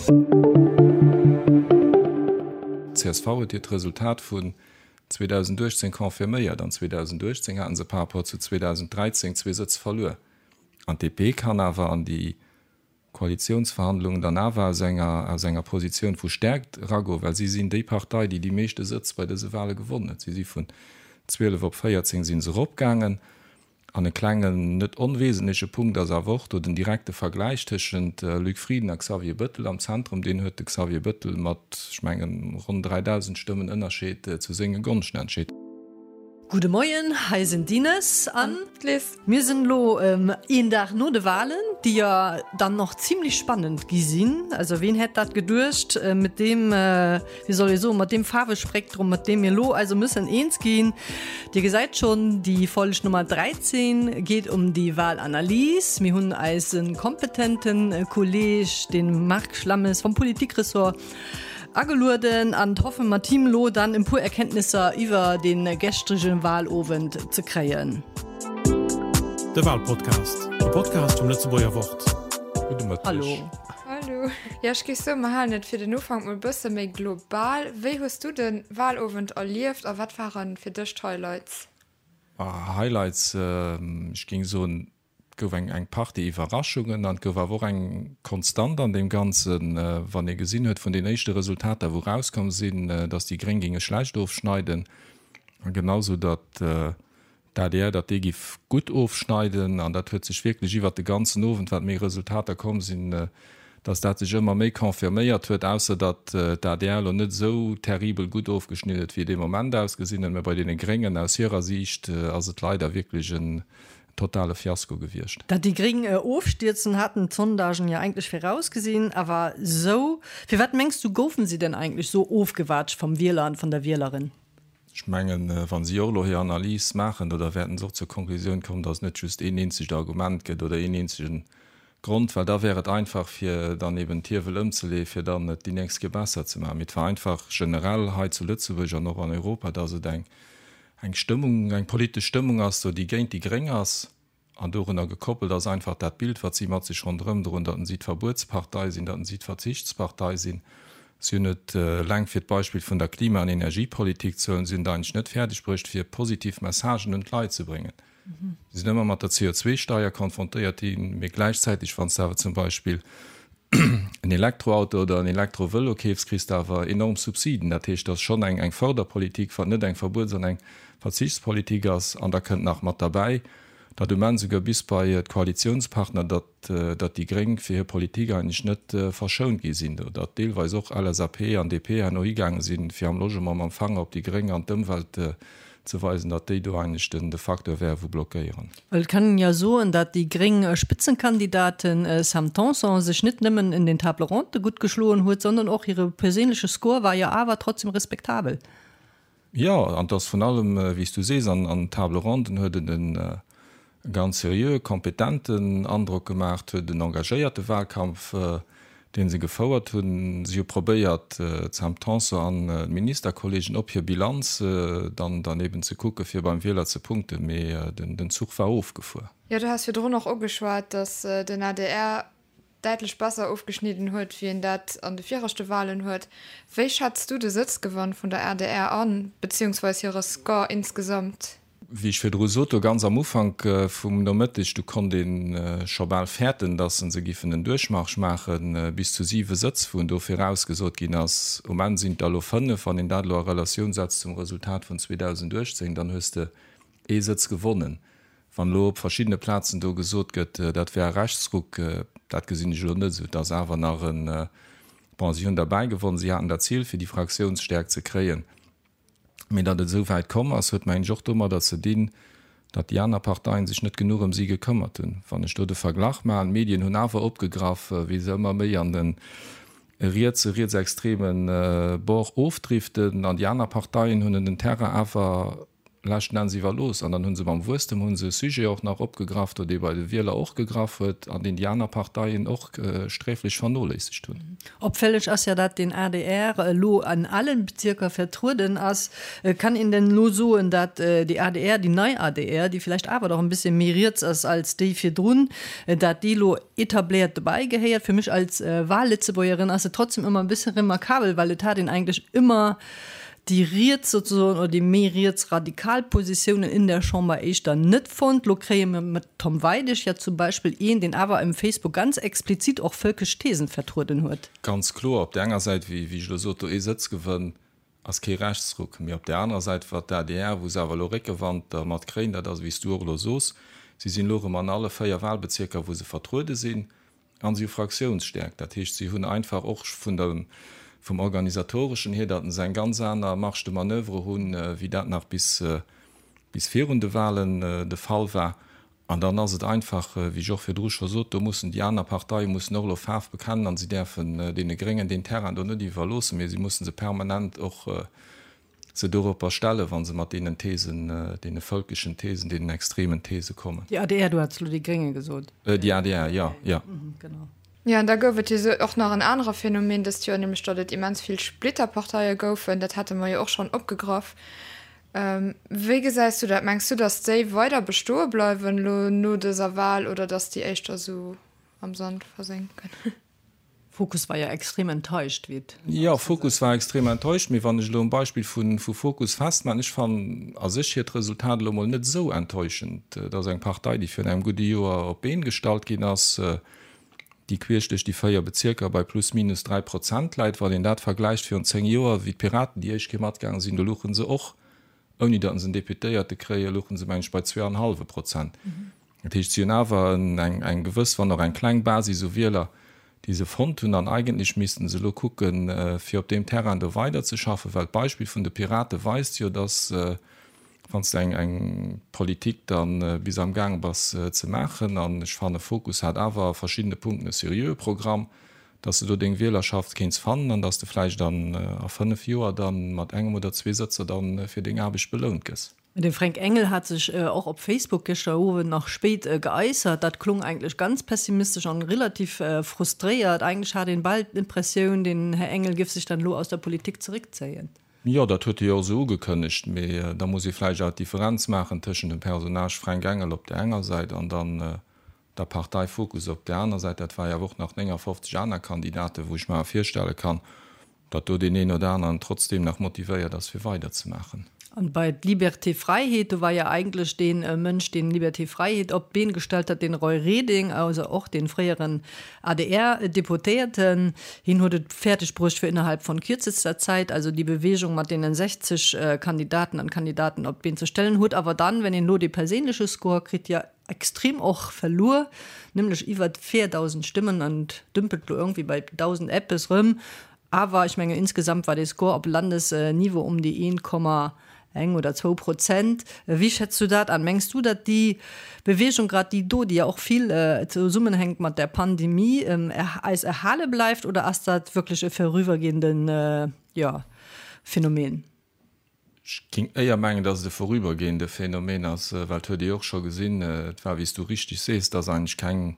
Csv huet hiert Resultat vun 2018 confirméiert. An 2018 haten se par rapport zu 2013 zwee Sëtz verluer. An d'DP kann awer an déi Koalitiounsverhandlungen dann awer aus enger aus enger Positioun vu Stärkt eragoen, well si sinn déi Partei, déi déi meeschte Sëtz bei dëse Wahle gewonnen huet. Si si vun 12 op 14 si se eropgaangen. An e klengen, net onwesentleche Punkt ass awer och do den direkte Vergläich tëschent Luc Frieden a Xavier Bëttel am Zentrum. Deen huet de Xavier Bëttel mat, ech mengen, ronn 3.000 Stëmmen Ënnerscheed zu senge Gonschten entscheet. Gudde Moien, hei sinn d'Ines an d'Liz. Mir sinn elo een Dag no de Walen, déi jo dann och zimlech spannend gi sinn. Also ween hätt dat geduecht mit deem, wéi soll ee soen, mat deem Faarwespektrum, mat deem mir elo also müssen eens ginn. Dir gesäit schonn, déi Folg Nummer 13 geet um déi Walanalys. Mir hunn eise kompetente Kolleg, de Marc Schlammes vom Politikressort, Agelueden an hoffen mat him lo dann en puer Erkenntnisser iwwer den gestregen Wahlowend ze kréien. De Wahlpodcast, e Podcast vum Lëtzebuerger Wort. Gudde Mëtteg. Hallo. Hallo. Jo, ech géif soen, mer halen et fir den Ufank mol bësse méi global. Wéi hues du de Wahlowend erlieft a wat ware fir dech d'Highlights? Highlights, ech géing soen, Et gouf eng eng Partie Iwwerraschungen an et gouf awer och eng Konstant an deem Ganzen, wann ee gesinn huet vun den éischte Resultater, wou erauskomm sinn, datt déi Gréng géinge schlecht ofschneiden a genau sou datt d'ADR, datt déi giff gutt ofschneiden. An dat huet sech wierklech iwwert de ganzen Owend, wat méi Resultater komm sinn, datt dat sech ëmmer méi confirméiert huet, ausser datt d'ADR elo net esou terribel gutt ofgeschnidden huet, wéi et ee Moment ausgesinn huet. Mä bei deene Gréngen aus hirer Siicht ass et leider wierklech en totale Fiasko gewiescht. Datt déi Gréng ofstierzen, haten d'Sondagen jo eigentlech virausgesinn. Awer sou, firwat mengs du goufen si denn eigentlech sou ofgewaatscht vom Wieler an von der Wielerin? Ech mengen, wa si och elo hir Analys maachen, da wäerten se och zur Konklusioun kommen, datt et net just een eenzegt Argument gëtt oder een eenzege Grond, well da wär et einfach fir dann eben d'Hiewel ëmzeleeën, fir dann et déi nächst Kéier besser ze maachen. Mee et war einfach generell hei zu Lëtzebuerg an och an Europa, datt et eng eng Stëmmung, eng politesch Stëmmung ass do, déi géint déi Gréng ass. An dorunner gekoppelt ass einfach dat Bild, wat si mat sech ronderëm droen, datt si d'Verbuetspartei sinn, datt si d'Verzichtspartei sinn. Si hunn et, eleng fir d'Beispill vun der Klima an Energiepolitik ze huelen, si hunn et eigentlech net fäerdeg bruecht, fir positiv Messagen un d'Leit ze bréngen. Si sinn ëmmer mat der CO2-Steier konfrontéiert ginn, mee gläichzäiteg, wann s de awer zum Beispill en Elektroauto oder en Elektrovëlo keefs, kriss de awer enorm Subsiden. Dat heescht, dat ass schonn eng Fërderpolitik, wat net eng Verbuets an eng Verzichtspolitik ass. An da kënnt nach mat derbäi, datt um Enn souguer bis bei d'Koalitiounspartner, datt datt déi Gréng fir hir Politik eigentlech net verschount gi sinn, datt deelweis och LSAP an DP herno higaange sinn, fir am Logement mam Fanger op déi Gréng an d'Ëmwelt ze weisen, datt déi do eigentlech den de Facteur wäre wou blockéieren. Well et kann een jo soen, datt déi gréng Spitzenkandidatin Sam Tanson sech net nëmmen en den Table Ronde gutt geschloen huet, sondern och hire perséinleche Score war jo awer trotzdem respektabel. Jo, an et ass vrun allem, wéi s du sees, an den Table Ronden huet en e ganz seriöe, kompetenten Androck gemaach, huet en engagéierte Wahlkampf, dee se gefouert hunn. Si hu probéiert, d'Sam Tanson an d'Ministerkollegen op hir Bilanz dann dann eben ze kucken, fir beim Wieler ze punkten, mee den Zuch war ofgefuer. Jo, du has virdrun och ugeschwat, datt den adr däitlech besser ofgeschnidden huet, wéi en dat an de viregte Walen huet. Wéi schätz du de Sëtzgewann vun der adr an, beziehungsweis hire Score insgesamt? Wéi ech virdru sot, do ganz am Ufank vum Nomëtteg, do konnt ee scho bal fäerten, datt se giffen en Duerchmarsch maachen, bis zu siwe Sëtz, wou en do virausgesot ginn ass. Um Enn sinn et der elo fënnef. Wann een dat elo a Relatioun setzt zum Resultat vun 2018, dann hues de ee Sëtz gewonnen. Wann elo op verschiddene Plazen do gesot gëtt, dat wär e Rechtsruck, dat gesinn ech elo net esou. Et ass awer nach en, bon, si hunn derbäi gewonnen, si haten dat Zil, fir déi Fraktiounsstäerkt ze kréien. Mee datt et esou wäit komm ass, huet, mengen ech, och domadder ze dinn, datt déi aner Parteien sech net genuch ëm si gekëmmert hunn. Wann ech do de Verglach maachen, d'Medien hunn awer opgegraff, wéi se ëmmer méi an de rietse, rietsextreme Bord ofdriften an déi aner Parteien hunn en den Terrain awer. leschten Enns iwwerlooss. An dann hu se mam Wuesstem hu se e Sujet och nach opgegraff do, dee bei de Wieler och gegraff huet an deen déi aner Parteien och sträflech vernoléissegt hunn. Opfälleg ass ja, dat den adr elo an allen Bezierker vertrueden ass. Kann een denn elo soen, dat déi adr, déi nei adr, déi vielleicht awer doch en bisschen méi riets ass als déi virdrun, dat déi elo etabléiert dobäi gehéiert? Fir mech als Wahllëtzebuergerin ass et trotzdem ëmmer e bësse remarkabel, well et hat een eigentlech ëmmer déi riets sozesoen oder déi méi riets radikal Positiounen in der Chamber éischter net fonnt. Lo kréie mir mat Tom Weidig ja zum Beispill een, deen awer um Facebook ganz explizit och völkesch Thesen vertrueden huet. Ganz kloer, op där enger Säit, wéi ech elo sot, do ee Sëtzgewënn ass kee Rechtsruck, mee op där anerer Säit, wat d'ADR, wou se awer elo Réckewand dermat kréien, dat ass, wéi s du och elo sos, si sinn elo erëm an alle 4 Wahlbezierker, wou se vertruede sinn, An si hu Fraktiounsstäerkt. Dat heescht, si hunn einfach och vun der, vum Organisatoreschen hier, datt se eng ganz aner Marge de manoeuvre hunn, wéi dat nach bis, bis virun de Wahlen de Fall war. An dann ass et einfach, wéi ech och virdru scho sot, do mussen déi aner Parteie mussen och elo Faarf bekennen an si däerfen deene Gréngen deen Terrain do net iwwerloossen, mee si musse se permanent och se doropper stellen, wa se mat deenen Thesen, deene völkeschen Thesen, deenen extremen These kommen. Déi adr, du hats elo déi Grénge gesot. Déi adr, jo, jo. Genau. Jo, an da gouf et jo sou och nach en anere Phänomen dëst Joer, nämlech datt et immens vill Splitterparteie goufen. Dat hate mer jo och schonn opgegraff. Wéi gesäis du dat? Mengs du, datt déi weider bestoe bleiwen elo no dëser Wal oder datt déi éischter sou am Sand versénken? Fokus war jo extrem enttäuscht, wéi et Jo, Fokus war extrem enttäuscht, mee wann ech elo um Beispill vu Fokus festmaachen, ech fannen a sech hiert Resultat elo mol net esou enttäuschend. Et ass eng Partei, déi virun engem gudde Joer op d'Been gestallt ginn ass, déi queesch duerch déi 4 Bezierker bei plus minus 3 Prozent läit. Wann een dat vergläicht virun 10 Joer, wéi d'Piraten déi éischt Kéier matgaange sinn, do louche se och, ouni datt se en Deputéierte kréien, louche se meng ech bei zwee an e hallwe Prozent. Dat heescht, si hunn awer eng gewëss, wann och eng kleng Basis u Wieler, déi se fonnt hunn. An eigentlech missten se elo kucken, fir op deem Terrain do weiderzeschaffen, well d'Beispill vun de Pirate weist jo, dass, wann s de eng Politik da bis am Gaang bass ze maachen, an ech fanne Fokus hat awer a verschiddene Punkten e seriöe Programm, dass de do deng Wielerschaft kéints fannen an dass de vläicht a fënnf Joer da mat engem oder zwee Sëtzer da fir deng Aarbecht belount gëss. De Fränk Engel hat sech och op Facebook gëschter Owend nach spéit geäussert. Dat klong eigentlech ganz pessimistesch an relativ frustréiert. Eigentlech hat een bal d'Impressioun, den Här Engel géif sech dann elo aus der Politik zeréckzéien. Jo, dat huet e jo och esou ugekënnegt. Mee da muss ee vläicht awer d'Differenz maachen tëschent dem Personnage Fränk Engel op där enger Säit an dann der Partei Fokus op där aner Säit. Dat war jo awer och nach 59 aner Kandidaten, wou ech mer awer virstelle kann, datt do deen een oder aneren trotzdeem nach motivéiert ass, fir weiderzemaachen. An bei Liberté Fräiheet, do war jo eigentlech dee Mënsch, deen Liberté Fräiheet op d'Been gestallt hat, den Roy Reding, also och dee fréieren ADR-Deputéierten. Hien huet et fäerdeg bruecht, fir innerhalb von kürzester Zäit also déi Bewegung mat deenen 60 Kandidaten an Kandidaten op d'Been ze stellen, huet awer dann, wenn een elo dee perséinleche Score kritt, jo extrem och verluer, nämlech iwwert 4.000 Stëmmen an dümpelt lo irgendwie bei 1.000 eppes rëm. Awer ech menge insgesamt war dee Score op Landesniveau um déi 1,1 oder zwou Prozent. Wéi schätz du dat an? Mengs du, datt déi Bewegung, grad déi do, déi ja och vill zesummenhänkt mat der Pandemie, eis erhale bleift oder ass dat wierklech e vorübergehenden, jo, Phänomen? Ech géing éier mengen, datt et e vorübergehende Phänomen ass, well et huet ee jo och scho gesinn, et war, wéi s du richtig sees, et ass eigentlech keng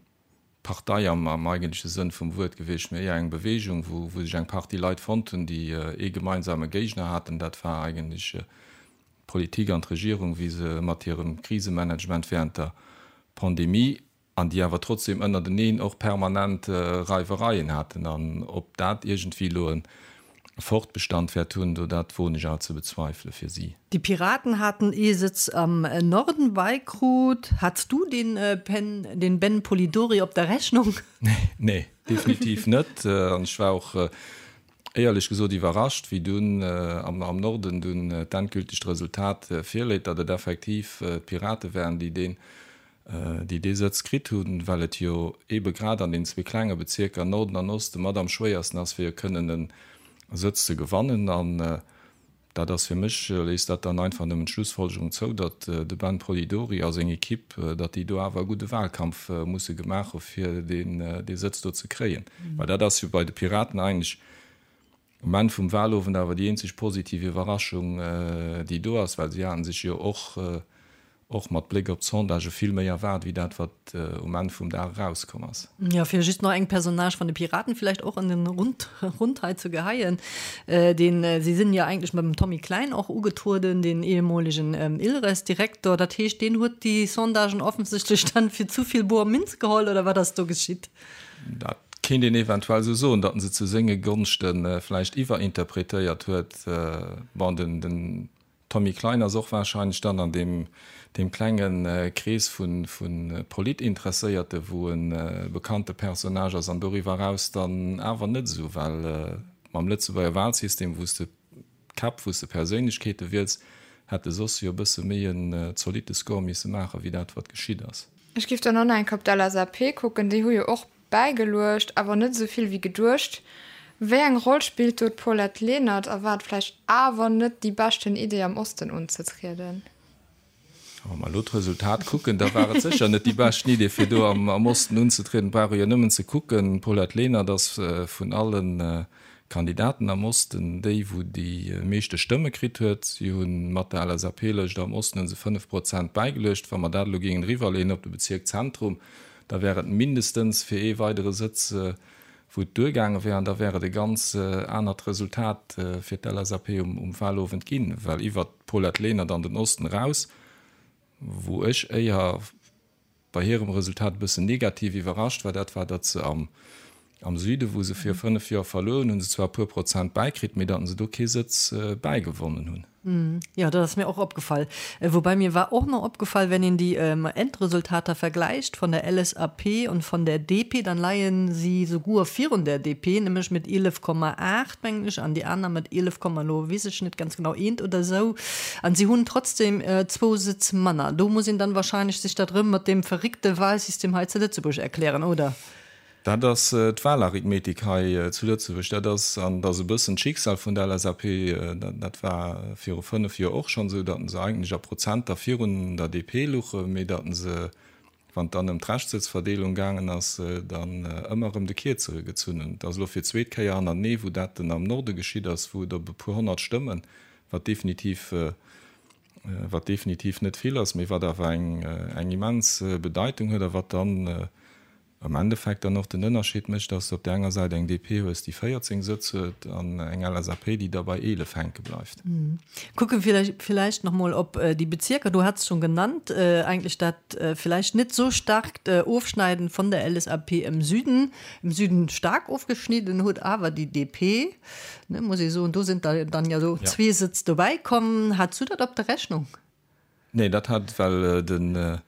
Partei am eigentleche Sënn vum Wuert gewiescht, mee éier eng Bewegung, wou sech eng Partie Leit fonnt hunn, déi ee gemeinsame Géigner haten. Dat war eigentlech d'Politik an d'Regierung, wéi se mat hirem Krisemanagement während der Pandemie an déi awer trotzdem ënnerteneen och permanent Reiwereien haten, an ob dat iergendwéi elo e Fortbestand wäert hunn, do dat woen ech awer ze bezweifele fir si. Déi Piraten haten ee Sëtz am Norden beikrut. Hats du den den Ben Polidori op der Rechnung? Nee, definitiv net. An ech war och éierlech gesot iwwerrascht, wéi dunn am Norden dunn d'endgültegt Resultat virléit, datt et effektiv d'Pirate waren, déi deen déi dee Sëtz kritt hunn, well et jo eebe grad an den zwee klenge Bezierker Norden an Oste mat am schwéiersten ass, fir kënnen e Sëtz ze gewannen. An dat ass fir mech, léisst dat dann einfach nëmmen d'Schlussfolgerung zou, datt de Ben Polidori a seng Ekipp, datt déi do awer e gudde Wahlkampf musse gemaach hu fir deen dee Sëtz do ze kréien. Well dat ass jo bei de Piraten eigentlech. Um Enn vum Wahlowend awer déi eenzeg positiv Iwwerraschung, déi do ass, well si haten sech jo och, och mat Bléck op d'Sondagë vill méi erwaart, wéi dat, wat um Enn vum Dag erauskomm ass. Jo, fir just nach eng Personnage van de Piraten villäicht och an den Rund, Rund hei ze geheien, deen, si sinn jo eigentlech mam Tommy Klein och ugetrueden, deen ehemolegen ILRES-Direktor. Dat heescht, deen huet déi Sondagen offensichtlech dann fir zu vill boer Minz geholl, oder wat ass do geschitt? Dat kéint een eventuell esou soen, datt en se zu senge Gonschte vläicht iwwerinterpretéiert huet. Bon, den Tommy Klein ass och warscheinlech dann an deem klenge Krees vu Politinteresséierte wou e bekannte Personnage ass, an doriwwer eraus dann awer net esou, well mam Lëtzebuerger Wahlsystem, wou s de Käpp, wou s de Perséinlechkeete wiels, hätt e soss jo e bësse méi en zolitte Score misse maachen, wéi dat wat geschitt ass. Ech giff dann och nach eng Kéier op d'LSAP kucken, déi hu jo och bäigeluecht, awer net esou vill wéi geduecht. Wéi eng Roll spillt do d'Paulette Lenert a war et vläicht awer net déi beschten Idee am Osten unzetrieden? Wa mer elo d'Resultat kucken, da war et sécher net déi beschten Idee fir do am Osten unzetrieden. Et brauch ee jo nëmmen ze kucken, d'Paulette Lenert ass vun alle Kandidaten am Osten déi wou déi meeschte Stëmme kritt huet. Si hu mat der LSAP-Lëscht am Osten hu se 5 Prozent bäigeluecht. Wa mer dat elo géingen eriwwerleeën op de Bezierk Zentrum, da wär et mindestens fir ee weidere Sëtz, wou et duergaange wär, an da wär et e ganz anert Resultat fir d'LSAP um Wahlowend ginn, well iwwert d'Paulette Lenert an den Osten eraus, wou ech éier bei hirem Resultat e bëssen negativ iwwerrascht war, dat war, datt se am Süden, wou se viru 5 Joer verluer hunn, hu se zwar e puer Prozent bäikritt, mee datt se do kee Sëtz bäigewonnen hunn. Jo, dat ass mir och opgefall. Woubäi mir war och nach opgefall, wenn een déi Endresultater vergläicht von der LSAP und von der DP, dann leien si souguer virun der DP, nämlech mit 11,8 mengen ech, an déi aner mat 11, elo weess ech net ganz genau, eent oder esou. An si hunn trotzdem zwou Sëtz manner. Do muss een dann wahrscheinlech sech dat erëm mat deem verréckte Wahlsystem hei zu Lëtzebuerg erklären, oder? Dat ass d'Wahlarithmetik hei zu Lëtzebuerg. Dat ass, an dat ass e bëssen d'Schicksal vun der LSAP, dat war viru 5 Joer och schonn esou, datt se eigentlech a Prozenter virun der DP luche, mee datt se, wann et dann ëm d'Reschtsëtzverdeelung gaangen ass, dann ëmmer erëm de Kierzere gezunn hunn. Et ass elo fir d'zweet Kéier hannertenee, wou dat dann am Norde geschitt ass, wou et op e puer 100 Stëmmen, wat definitiv, wat definitiv net vill ass, mee wat awer eng, eng immens Bedeitung huet a wat dann am Endeffekt dann och den Ënnerscheed mécht, dass de op där enger Säit eng DP hues, déi 14 Sëtz huet, an eng LSAP, déi da bei 11 hänke bleift. Kucke villäicht nach mol op déi Bezierker, du hats schon genannt, eigentlech dat villäicht net sou starkt Ofschneiden von der LSAP im Süden, im Süden stark ofgeschnidden huet awer déi DP, ne, muss ee soen, do sinn der dann jo sou zwee Sëtz dobäi komm. Hats du dat op der Rechnung? Nee, dat hat, well den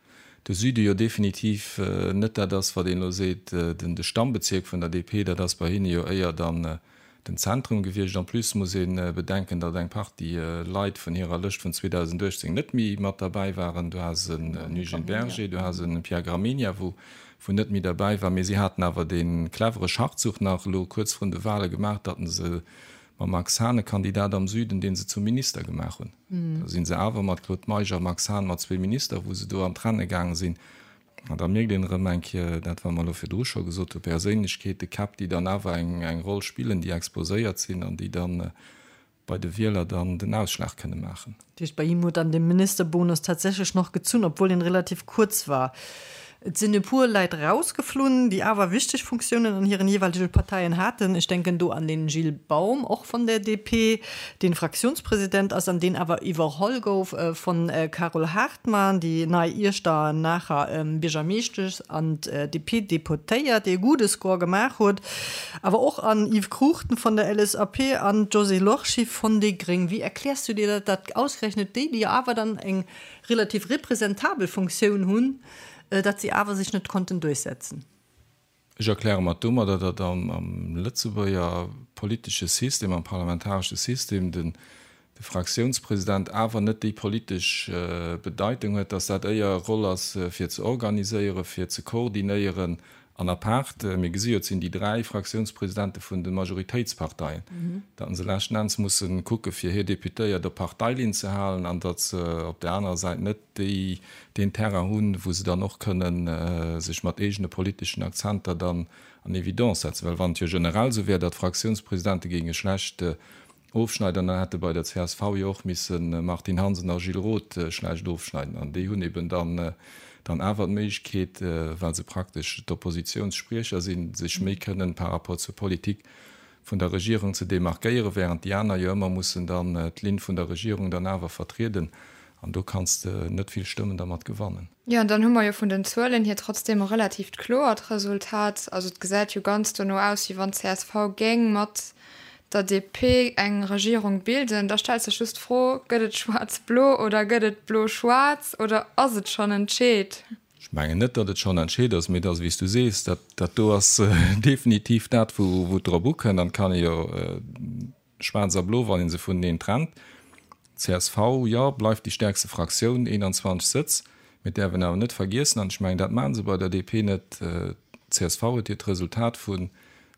de Süde jo definitiv net dat ass, wat een elo seet, den de Stammbezierk vun der DP, dat ass bei hinne jo éier dann den Zentrum gewiescht. En plus muss ee bedenken, datt eng Partie Leit vun hirer Lëscht vun 2018 net méi mat derbäi waren. Du has en Eugène Berger, du has en Pierre Gramegna, wou wou net méi derbäi war. Mee si haten awer dee clevere Schachzuch nach elo kuerz vrun de Wahle gemaach, datt se mam Max Hahn e Kandidat am Süden, dee se zum Minister gemaach hunn. Da si se awer mat Claude Meisch a Max Hahn mat zwee Minister, wou se do an d'Renne gaange sinn. An da mierkt een erëm eng Kéier dat, wat mer elo virdru scho gesot hunn, Perséinlechkeete, Käpp, déi dann awer eng Roll spillen, déi exposéiert sinn an déi dann bei de Wieler dann den Ausschlag kënne maachen. Dat heescht, bei him huet dann de Ministerbonus tatsächlech noch gezunn, obwuel en relativ kuerz war. Et sinn e puer Leit rausgeflunn, déi awer wichteg Funktiounen an hiren jeeweilege Parteien haten. Ech denken do an den Gilles Baum, och vun der DP, deen Fraktiounspresident ass an deen awer iwwerholl gouf vun Carole Hartmann, déi nei Iechternacher Biergermeeschtesch an DP-Deputéiert, déi e gudde Score gemaach huet. Awer och an Yves Cruchten vun der LSAP an d'Josée Lorsché vun déi gréng. Wéi erkläers du dir dat, datt ausgerechnet déi, déi awer dann eng relativ representabel Funktioun hunn, datt si awer sech net konnten duerchsetzen? Ech erkläre mer domadder, datt am Lëtzebuerger politesche System, am parlamentaresche System, de Fraktiounspresident awer net déi politesch Bedeitung huet, datt dat éier e Roll ass fir ze organiséieren, fir ze koordinéieren An apaart, mir gesi jo, et sinn déi 3 Fraktiounspresidente vun de Majoritéitsparteien, datt se leschten Enns musse kucke fir hir Deputéiert op Parteilinn ze halen an datt se op där anerer Säit net déi, deen Terrain hunn, wou se dann och kënnen sech mat eegene politeschen Akzenter dann. An Evidence setzen. Well wann et jo generell esou wär, datt d'Fraktiounspresidente géinge schlecht ofschneiden, dann hätte bei der csv jo och misse Martine Hansen a Gilles Roth schlecht ofschneiden. An déi hunn eben dann dann awer d'Méiglechkeet, well se praktesch d'Oppositionsspriecher sinn, sech méi kënnen par rapport zur Politik vun der Regierung ze demarkéieren, während déi aner jo ëmmer mussen dann d'Linn vun der Regierung dann awer vertrieden. An do kanns de net vill Stëmmen dermat gewannen. Jo, an dann hu mer jo vun den Zuelen hier trotzdem e relatiivt kloert Resultat. Also et gesäit jo ganz dono aus, wéi wann d'CSV géing mat der DP eng Regierung bilden. Da stellt sech just d'Fro, Gëtt et schwaarz-blo oder gëtt et blo-schwaarz oder ass et schonn entscheet? Ech mengen net, datt et schonn entscheet ass, mee et ass, wéi s du sees, dat dat do ass definitiv dat, wou et drop ukënnt. An et kann ee jo Schwaarz a Blo, wann ee se vuneneen trennt. Csv, jo, bleift déi stäerkste Fraktioun, 21 Sëtz. Mir däerfen awer net vergiessen, an ech mengen, dat maache se bei der DP net, csv huet hiert Resultat vun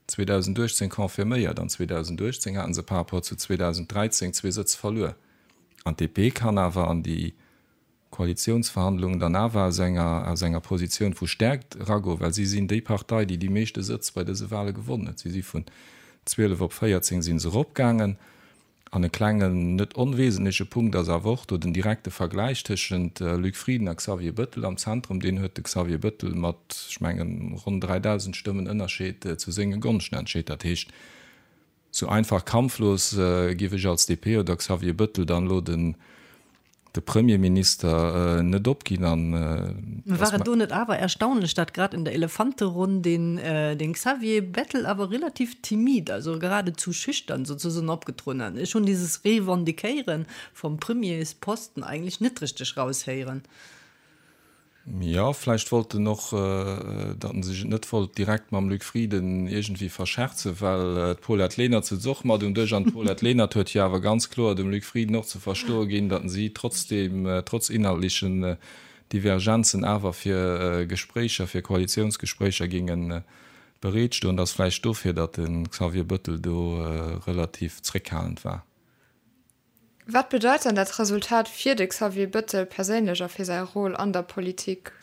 2018 confirméiert. An 2018 hate se par rapport zu 2013 zwee Sëtz verluer. An d'DP kann awer an déi Koalitiounsverhandlungen dann awer aus enger aus enger Positioun vu Stärkt eragoen, well si sinn déi Partei, déi déi meeschte Sëtz bei dëse Wahle gewonnen huet. Si si vun 12 op 14 si se eropgaangen. An e klengen, net onwesentleche Punkt ass awer och do den direkte Vergläich tëschent Luc Frieden a Xavier Bëttel am Zentrum. Deen huet de Xavier Bëttel mat, ech mengen, ronn 3.000 Stëmmen Ënnerscheed zu senge Gonschten entscheet. Dat heescht, Sou einfach kampflos giff ech als DP oder Xavier Bëttel dann elo den de Premierminister net opginn an War et do net awer erstaunlech, dat grad in der Elefanteronn den den Xavier Bettel awer relativ timid, also geradezu schüchtern sozusagen opgetrueden hat? Ech hunn dieses Revendiquéieren vom Premiersposten eigentlich net richteg raushéieren. Jo, vläicht wollt en och, datt en sech et net wollt direkt mam Luc Frieden iergendwéi verscherzen, well d'Paulette Lenert sutz och mat um Dësch an d'Paulette Lenert huet jo awer ganz kloer dem Luc Frieden och ze verstoe ginn, datt si trotzdeem, trotz inhaltlechen Divergenzen awer fir Gespréicher, fir Koalitiounsgespréicher géinge bereet stoen. Et ass vläicht dofir, datt de Xavier Bëttel do relativ zréckhalend war. Wat bedeit dann dat Resultat fir de Xavier Bëttel perséinlech a fir säi Rôle an der Politik?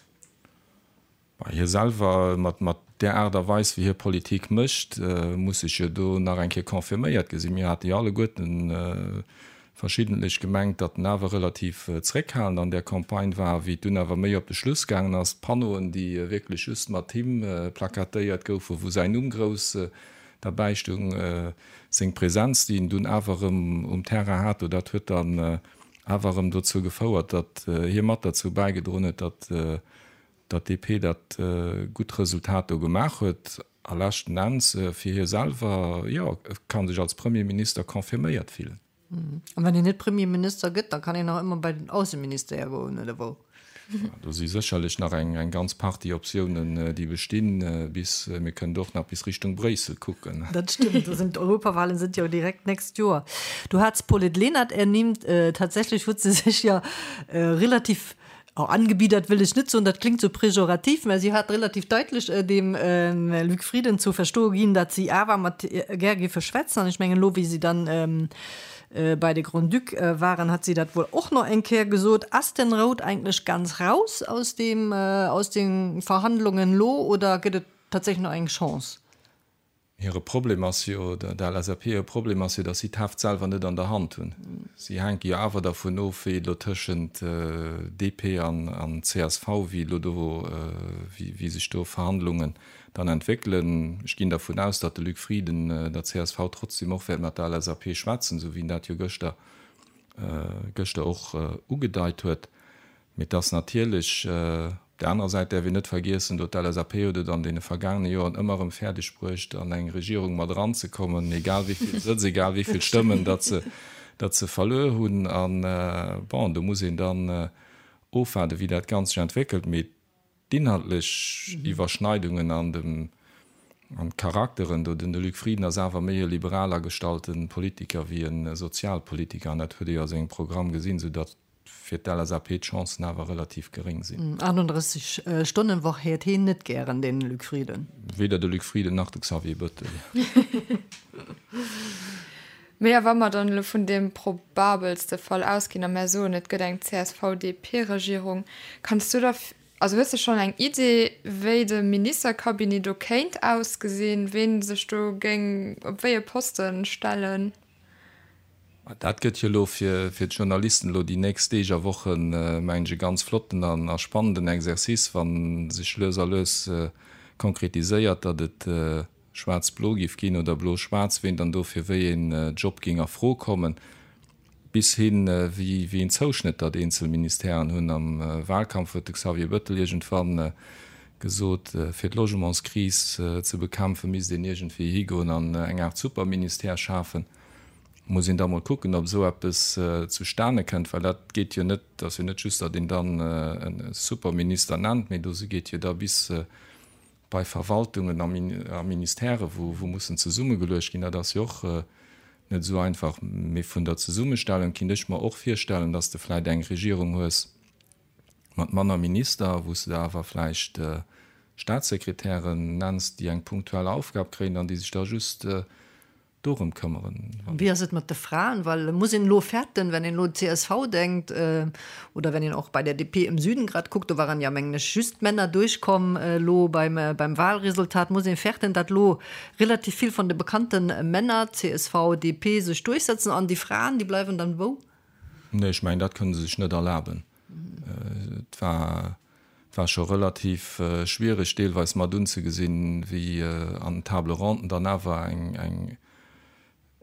Bah, hie selwer, mat mat där Aart a Weis wéi hie Politik mécht, muss sech jo do nach eng Kéier confirméiert gesinn. Mir hate jo alleguerten verschiddentlech gemengt, datt en awer relativ zréckhalend an där Campagne war. Wéi et dunn awer méi op de Schluss gaangen ass, d'Panneauen, déi wierklech just mat him plakatéiert goufen, wou säin Numm grouss derbäi stoung, Seng Präsenz, déi en dunn awer erëm um Terrain hat, do dat huet dann awer erëm dozou gefouert, datt hie mat derzou bäigedroen huet, datt datt d'DP dat gutt Resultat do gemaach huet. A leschten Enns fir hie selwer, jo, e ka sech als Premierminister confirméiert fillen. An wann een net Premierminister gëtt, da kann een nach ëmmer bei den Ausseministère goen, oder wou? Do si sécherlech nach eng ganz Partie Optiounen, déi bestinn, bis, mir kënnen och nach bis Richtung Bréissel kucken. Dat stëmmt, do sinn d'Europawahlen sinn jo direkt d'nächst Joer. Du hats d'Paulette Lenert ernimmt. Tatsächlech huet se sech jo relativ Oh, angebiedert wëll ech net soen, dat klingt sou pejorativ, mä si hat relativ daitlech dem Luc Frieden zu verstoe ginn, datt si awer mat gär géife schwätzen. An ech mengen elo, wéi si dann bei de Grand-Duc waren, hat si dat wuel och nach eng Kéier gesot. Ass den Roth eigentlech ganz raus aus deem, aus de Verhandlungen elo oder gëtt et tatsächlech nach eng Chance? Hire Problem ass jo, der LSAP hire Problem ass jo, datt si d'Heft selwer net an der Hand hunn. Si hänke jo awer dervun of, wéi et elo tëschent DP an csv, wéi elo do, wéi sech do Verhandlungen dann entwéckelen. Ech ginn dervun aus, datt de Luc Frieden der csv trotzdem och wäert mat der LSAP schwätzen, esou wéi en dat jo gëschter, gëschter och ugedeit huet. Mee et ass natierlech, op där anerer Säit däerf een net vergiessen, do d'LSAP huet et an deene vergaangene Joren ëmmer erëm fäerdeg bruecht, an eng Regierung mat eranzekommen, egal wéi vill Sëtz, egal wéi vill Stëmmen datt se, datt se verluer hunn. A bon, do muss een dann ofwaarden, wéi dat Ganzt sech entwéckelt. Mee D'inhaltlech Iwwerschneidungen an dem an d'Charakteren do, den de Luc Frieden ass awer méi e liberal agestallte Politiker wéi e Sozialpolitiker an dat huet ee jo a sengem Programm gesinn, sou datt fir d'LSAP d'Chancen awer relativ geréng sinn. 38 Stonnenwoch héiert heen net gären, den Luc Frieden. Weder de Luc Frieden nach de Xavier Bëttel. Mee a wa mer dann elo vun deem probabelste Fall ausginn a mär soen, et gëtt eng CSV-DP-Regierung, kanns du da. Also hues de schonn eng Idee, wéi de Ministercabinet do kéint ausgesinn, ween sech do géing op wéi e Poste stellen? Dat gëtt jo elo fir d'Journalisten elo déi nächst Deeg a Wochen, mengen ech, e ganz flotten a spannenden Exercice, wa sech lues a lues konkretiséiert, datt et schwaarz-blo géif ginn oder blo-schwaarz, ween dann do fir wéi een Job géing a Fro kommen. Bis hin, wéi een Zouschnëtt datt eenzel Ministèren hunn. Am Wahlkampf huet de Xavier Bëttel iergendwann gesot, fir d'Logementskris ze bekämpfen, misst een iergendwéi higoen an eng Aart Superministère schafen. Muss een da mol kucken, ob esou eppes zustane kënnt, well dat geet jo net, ass jo net just, datt een dann e Superminister nennt, mee do geet jo da bis bei Verwaltungen a Ministèrë wou mussen zesummegeluecht ginn, dat ass jo och net esou einfach. Mee vun der Zesummestellung kinnt ech mer och virstellen, datt s de vläicht eng Regierung hues mat manner Minister, wou s de der awer vläicht Staatssekretären nenns, déi eng punktuell Aufgab kréien an déi sech da just dorëm këmmeren. Wéi ass et mat de Fraen? Well muss een elo fäerten, wenn een elo un csv denkt oder wenn een och bei der DP im Süden grad kuckt, do waren ja mengen ech just Männer duerchkomm elo beim beim Wahlresultat, muss een fäerten, datt elo relativ vill von de bekannte Männer, csv, DP, sech duerchsetzen an déi Fraen, déi bleiwen dann wou? Nee, ech mengen dat kënne se sech net erlaben. Et war war scho relativ schwiereg deelweis mat unzegesinn, wéi an den Table ronden dann awer eng eng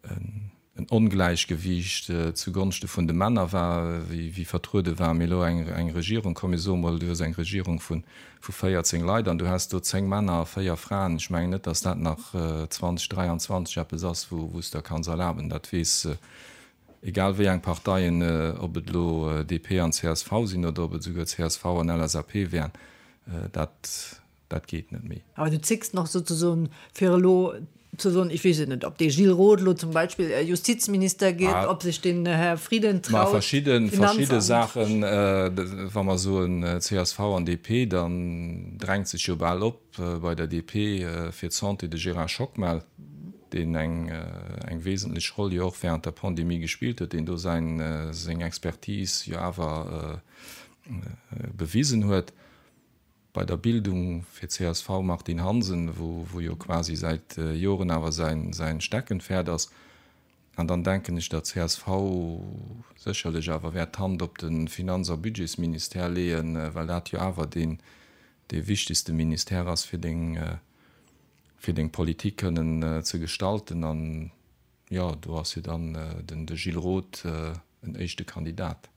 en Ongläichgewiicht zugonschte vun de Männer war, wéi wéi vertruede war. Mee elo eng eng Regierung, komm mir soe mol, du hues eng Regierung vu vu 14 Leit an du häss do 10 Männer a 4 Fraen, ech mengen net, datt dat nach 2023 eppes ass, wou wou s der kanns erlaben. Dat weess Egal wéi eng Parteien, ob et elo DP an csv sinn oder ob et esouguer csv an LSAP wären, dat, dat geet net méi. Awer du zécks nach souzesoen, fir elo ze soen, ech weess et net, ob dee Gilles Roth elo zum Beispill Justizminister gétt, ob sech den Här Frieden traut, Finanzamt. Verschidde, verschidde Saachen, wa mer soen csv an DP, dann drängt sech jo bal op bei der DP fir d'Santé de Gérard Schockmel. deen eng eng wesentlech Roll jo och während der Pandemie gespillt huet, deen do säin seng Expertise jo awer bewisen huet. Bei der Bildung fir csv Martine Hansen, wou wou jo quasi säit Joren awer säin säin Steckenpferd ass. An dann denken ech, datt csv sécherlech awer wäert d'Hand op de Finanz a Budgetsministère leeën, well dat jo awer deen dee wichtegste Ministère ass fir deng fir deng Politik kënnen ze gestalten. An jo, do ass jo dann den de Gilles Roth en éischte Kandidat.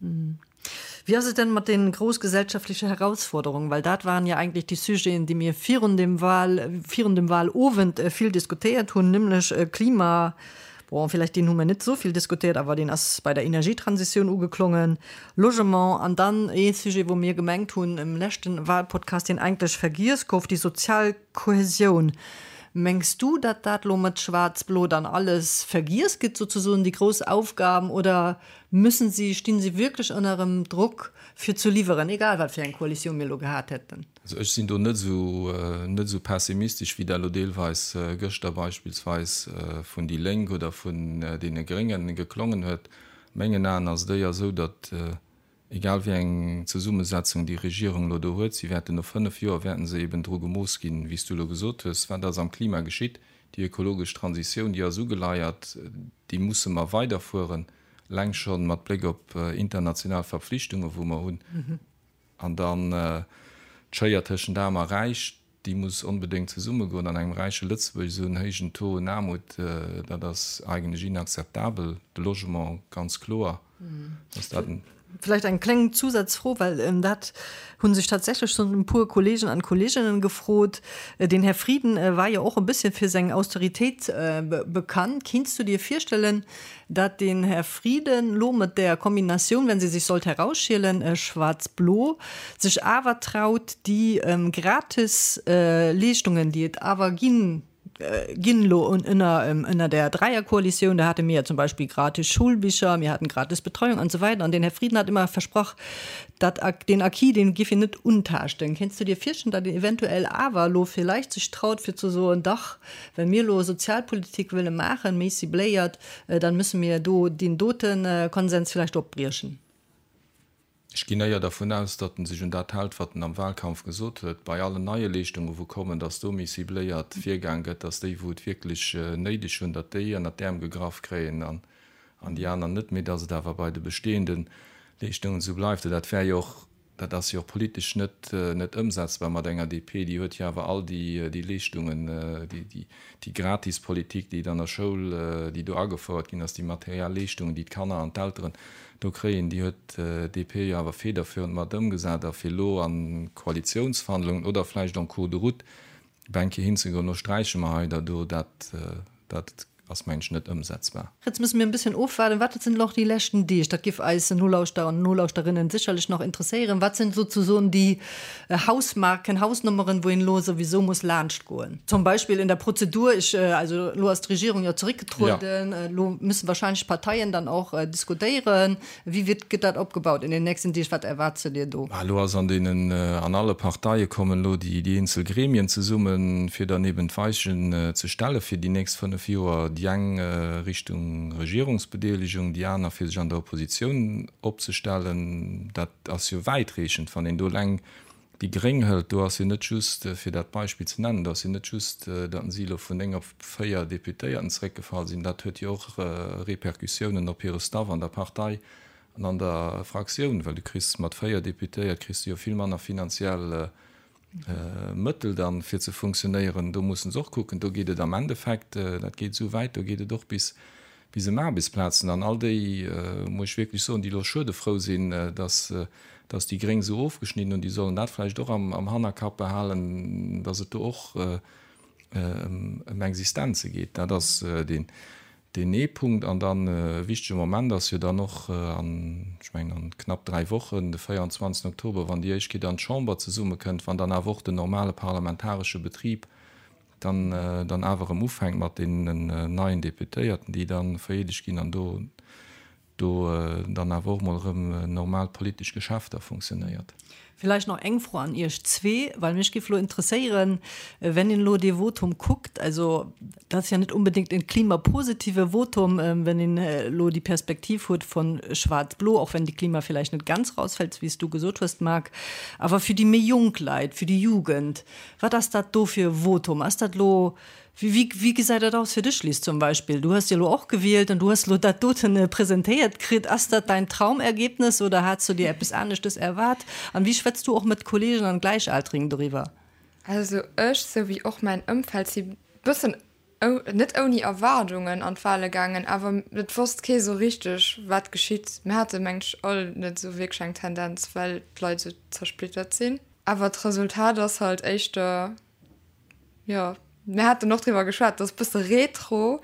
Wéi ass et denn mat den grouss gesellschaftliche Herausforderungen? Well dat waren ja eigentlich déi Sujeten, déi mir virun dem Wahl, virun dem Wahlowend vill diskutéiert hunn, nämlech Klima, bon, vielleicht deen hu mir net esou vill diskutéiert, awer deen ass bei der Energietransitioun ugeklongen, Logement an dann ee Sujet, wou mir gemengt hunn im leschten Wahlpodcast, deen eigentlech vergiess gouf, déi sozial Kohäsioun. Mengs du, datt dat lo mat Schwaarz-Blo dann alles vergiess gëtt, souzesoen déi grouss Aufgaben, oder müssen si, stinn si wierklech ënnerem Drock fir zu liwweren, egal wat fir eng Koalitioun mir lo gehat hätten? Also ech sinn do net esou, net esou pessimistesch, wéi dat elo deelweis gëschter beispillsweis vun déi Lénk oder vun deene Gréngen geklongen huet. A mengen Aen ass et éier esou, datt Egal wéi eng Zesummesetzung déi Regierung elo do huet, si wäerten no 5 Joer wäerten se eben dru gemooss ginn, wéi s du elo gesot hues, wat ass am Klima geschitt. Déi ökologesch Transitioun, déi ass ugeleiert, déi musse mer weiderfueren, eleng scho mat Bléck op international Verpflichtungen, wou mer hunn. An dann d'Schéier tëschent Aarm a Räich, déi muss onbedéngt zesummegoen. An engem räiche Lëtzebuerg esou en héijen Taux un Aarmut, dat ass eigentlech inakzeptabel. De Logement, ganz kloer, dass dat en. Vläicht eng kleng Zusazfro, well dat hu sech tatsächlech schonn e puer Kollegen an Kolleginnen gefrot. Den Här Frieden war jo och e bësschen fir seng Austeritéit bekannt. Kinns du dir virstellen, dat den Här Frieden lo mat där Kombinatioun, wenn se sich sollt herausschielen, schwaarz-blo, sech awer traut, déi gratis Leeschtungen, déi et awer ginn, ginn elo ënner, ënner där Dräierkoalitioun, da hate mir ja zum Beispill gratis Schulbicher, mir haten gratis Betreuung an esou weider, an den Här Frieden hat ëmmer versprach, dat, deen Acquis, deen géif hien net untaaschten. Kéints du dir virstellen, datt een eventuell awer elo villäicht sech traut, fir ze soen, dach, well mir elo Sozialpolitik wëlle maachen, méi cibléiert, dann müsse mir do deen dote Konsens vielleicht opbriechen. Ech ginn éier dervun aus, datt en sech un dat hält, wat en am Wahlkampf gesot huet, bei allen neie Leeschtungen, wou kommen, datt do méi cibléiert virgaang gëtt, datt déi, wou et wierklech néideg hunn, datt déi ënnert d'Äerm gegraff kréien an déi aner net, mee datt et awer bei de bestehende Leeschtungen esou bleift. Dat wär jo och Dat ass jo och politesch net net ëmsetzbar mat enger DP. Déi huet jo awer all déi déi Leeschtungen, déi déi déi Gratispolitik, déi et an der Schoul, déi do agefouert ginn ass, déi materiell Leeschtungen, déi d'Kanner an d'Elteren do kréien, déi huet d'DP jo awer federführend mat ëmgesat. A fir elo a Koalitiounsverhandlungen oder vläicht en cours de route op eng Kéier hinzegoen, lo sträiche mer hei der do, dat dat Ass mengen ech net ëmsetzbar. Jetzt müssen mir en bësschen ofwaarden. Wat sinn elo déi leschten Deeg? Dat giff eis Nolauschterer an Nolauschterinnen sécherlech nach interesséieren. Wat sinn souzesoen déi Hausmarken, Hausnummeren, wou een elo souwisou muss laanscht goen? Zum Beispill in der Prozedur, ech, also elo ass d'Regierung jo zeréckgetrueden, elo müssen wahrscheinlech d'Parteien dann och diskutéieren. Wéi wird, gëtt dat opgebaut in den nächsten Deeg? Wat erwaarts de dir do? Elo ass an deenen, an alle Parteie kommen elo déi eenzel Gremien zesummen, fir dann eben d'Weichen ze stelle fir déi nächst 5 Joer, déi eng Richtung Regierungsbedeelegung, déi aner fir sech an der Oppositioun opzestellen. Dat ass jo wäitreechend, wann een do eleng Déi Gréng hëlt, do ass jo net just, fir dat Beispill ze nennen, do ass jo net just, datt si elo vun 9 op 4 Deputéierten zeréckgefall sinn, dat huet jo och Repercussiounen op hire Staff an der Partei an an der Fraktioun, well du kriss mat 4 Deputéiert kriss du jo vill manner finanziell Mëttel dann, fir ze funktionéieren. Do mussen se och kucken. Do geet et am Endeffekt, dat geet esou wäit, do geet et och bis bis ëm Aarbechtsplazen. An all déi, muss ech wierklech soen, déi elo schuedefrou sinn, dass, dass déi Gréng esou ofgeschnidden hunn, déi sollen dat vläicht och am, am Hannerkapp behalen, dass et do och ëm, ëm Existenze geet. Dat ass deen, deen ee Punkt. An dann e wichtege Moment ass jo dann och an, ech mengen an knapp 3 Wochen, de 24 Oktober, wann déi éischt Kéier dann d'Chamber zesummekënnt, wann dann awer och den normale parlamentaresche Betrib dann dann awer erëm ufänkt mat deenen neien Deputéierten, déi da vereedegt ginn an do do dann awer och mol erëm normal politesch Geschäfter funktionéiert. Villäicht nach eng Fro an Iech zwee, well mech géif elo interesséieren, wenn een elo dee Votum kuckt, also dat ass ja net unbedéngt e klimapositive Votum, wenn een elo déi Perspektiv huet von schwarz-blo, och wenn de Klima villäicht net ganz rausfällt, wéi s du gesot hues, Marc, awer fir déi méi jonk Leit, fir déi Jugend, Wat ass dat do fir e Votum? Ass dat elo, wéi, wéi gesäit dat aus fir dech, Liz, zum Beispill? Du hues jo elo och gewielt an du hues elo dat doten presentéiert kritt. Ass dat däin Traumergebnis oder hats du dir eppes aneschtes erwaart? An wéi schwätz du och mat Kollegen an Gläichaltrigen doriwwer? Also ech, sou wéi och mäin Ëmfeld, si bëssen net ouni Erwaardungen an d'Wale gaangen, awer et wosst kee sou richteg, wat geschitt. Mir hate mengen ech all net sou wierklech eng Tendenz, well d'Leit sou zersplittert sinn. Awer d'Resultat ass halt éischter, jo, mir haten och driwwer geschwat, et ass e bësse retro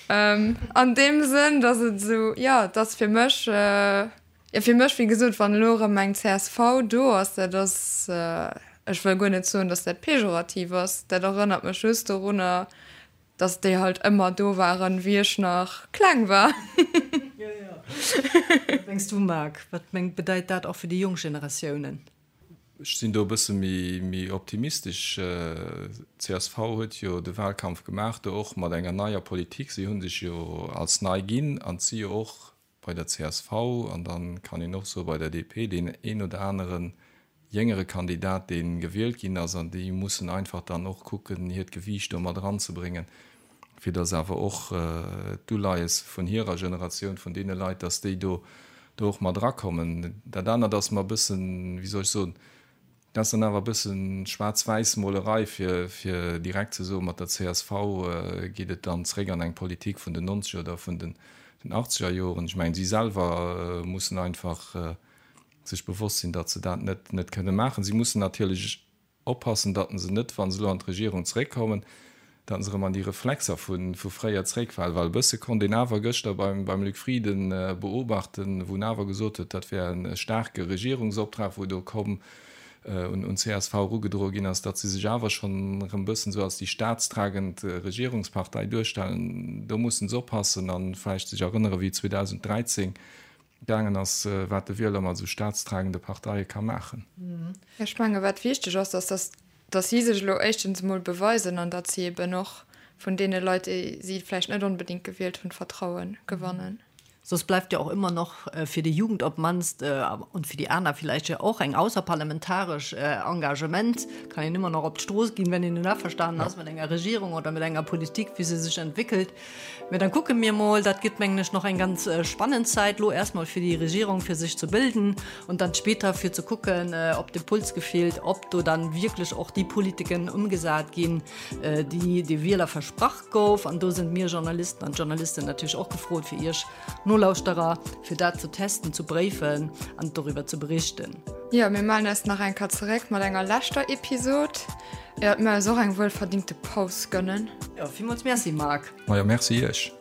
an deem Sënn, datt et esou, jo, et ass fir mech, jo, fir mech, wéi gesot, wann elo erëm eng csv do ass, dat ass, ech wëll guer net soen, datt dat pejorativ ass, dat erënnert mech just dorunner, Dass déi halt ëmmer do waren, wéi ech nach kleng war. Jo, jo. Wat mengs du, Marc? Wat mengt, bedeit dat och fir déi jonk Generatiounen? Ech sinn do e bësse méi optimistesch. Csv huet jo de Wahlkampf gemaach, do och mat enger neier Politik. Si hu sech jo als nei ginn an et si jo och bei der csv an dann kann een och soe bei der DP deen een oder anere jéngere Kandidat, dee gewielt ginn ass an déi mussen einfach dann och kucken, hiert Gewiicht do mat eranzebréngen, fir datt awer och d'Uleies vun hirer Generatioun, vun deene Leit, datt déi do do och mat erakommen. Dat anert ass mer e bëssen, wéi soll ech soen, Dat ass dann awer e bëssen Schwaarz-Wäiss-Molerei, fir fir direkt ze soen, mat der csv geet et dann zréck an eng Politik vun den nonzeger oder vun den achtzeger Joren. Ech mengen, si selwer mussen einfach sech bewosst sinn, datt se dat net net kënne maachen. Si mussen natierlech oppassen, datt se net, wa se elo an d'Regierung zréckkommen, datt se erëm an déi Reflexer vu fréier zréckfalen, well e bësse konnt een awer gëschter beim Luc Frieden beobachten, wou en awer gesot huet, dat wär e staarke Regierungsoptrag, wou do komm un csv erugedroe ginn ass, datt si sech awer schonn erëm e bëssen esou als déi staatstragend Regierungspartei duerstellen. Do mussen se oppassen a vläicht sech erënnere wéi 2013 gaangen ass, wat de Wieler mat esou staatstragende Parteie ka maachen. Ech menge wat wichteg ass, ass datt datt si sech elo éischtens emol beweisen an datt si eben och vun deene Leit, déi si vläicht net onbedéngt gewielt hunn, Vertraue gewannen. Soss bleift ja och ëmmer noch fir déi Jugend op d'mannst und fir déi aner villäicht jo och eng ausserparlamentaresch Engagement, kann een ëmmer nach op d'Strooss ginn, wenn een net averstanen ass mat enger Regierung oder mat enger Politik, wéi se sech entwéckelt. Mä dann kucke mir mol, dat gëtt mengen ech nach eng ganz spannend Zäit lo erstmol fir déi Regierung fir sech ze bilden und dann später fir ze kucken, ob de Puls gefillt, ob do dann wierklech och déi Politiken ëmgesat ginn, déi de Wieler versprach gouf. An do sinn mir Journalisten an Journalisten natierlech och gefrot, fir Iech Nolauschterer, fir dat ze testen, ze bréifen an doriwwer ze berichten. Jo, mir mellen eis nach eng Kéier zeréck mat enger leschter Episod, iert mir eis och eng wuelverdingte Paus gönnen. Jo, villmools Merci, Marc. Majo, Merci Iech.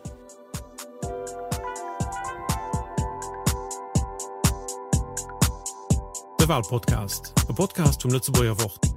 De Walpodcast, e Podcast vum Lëtzebuerger Wort.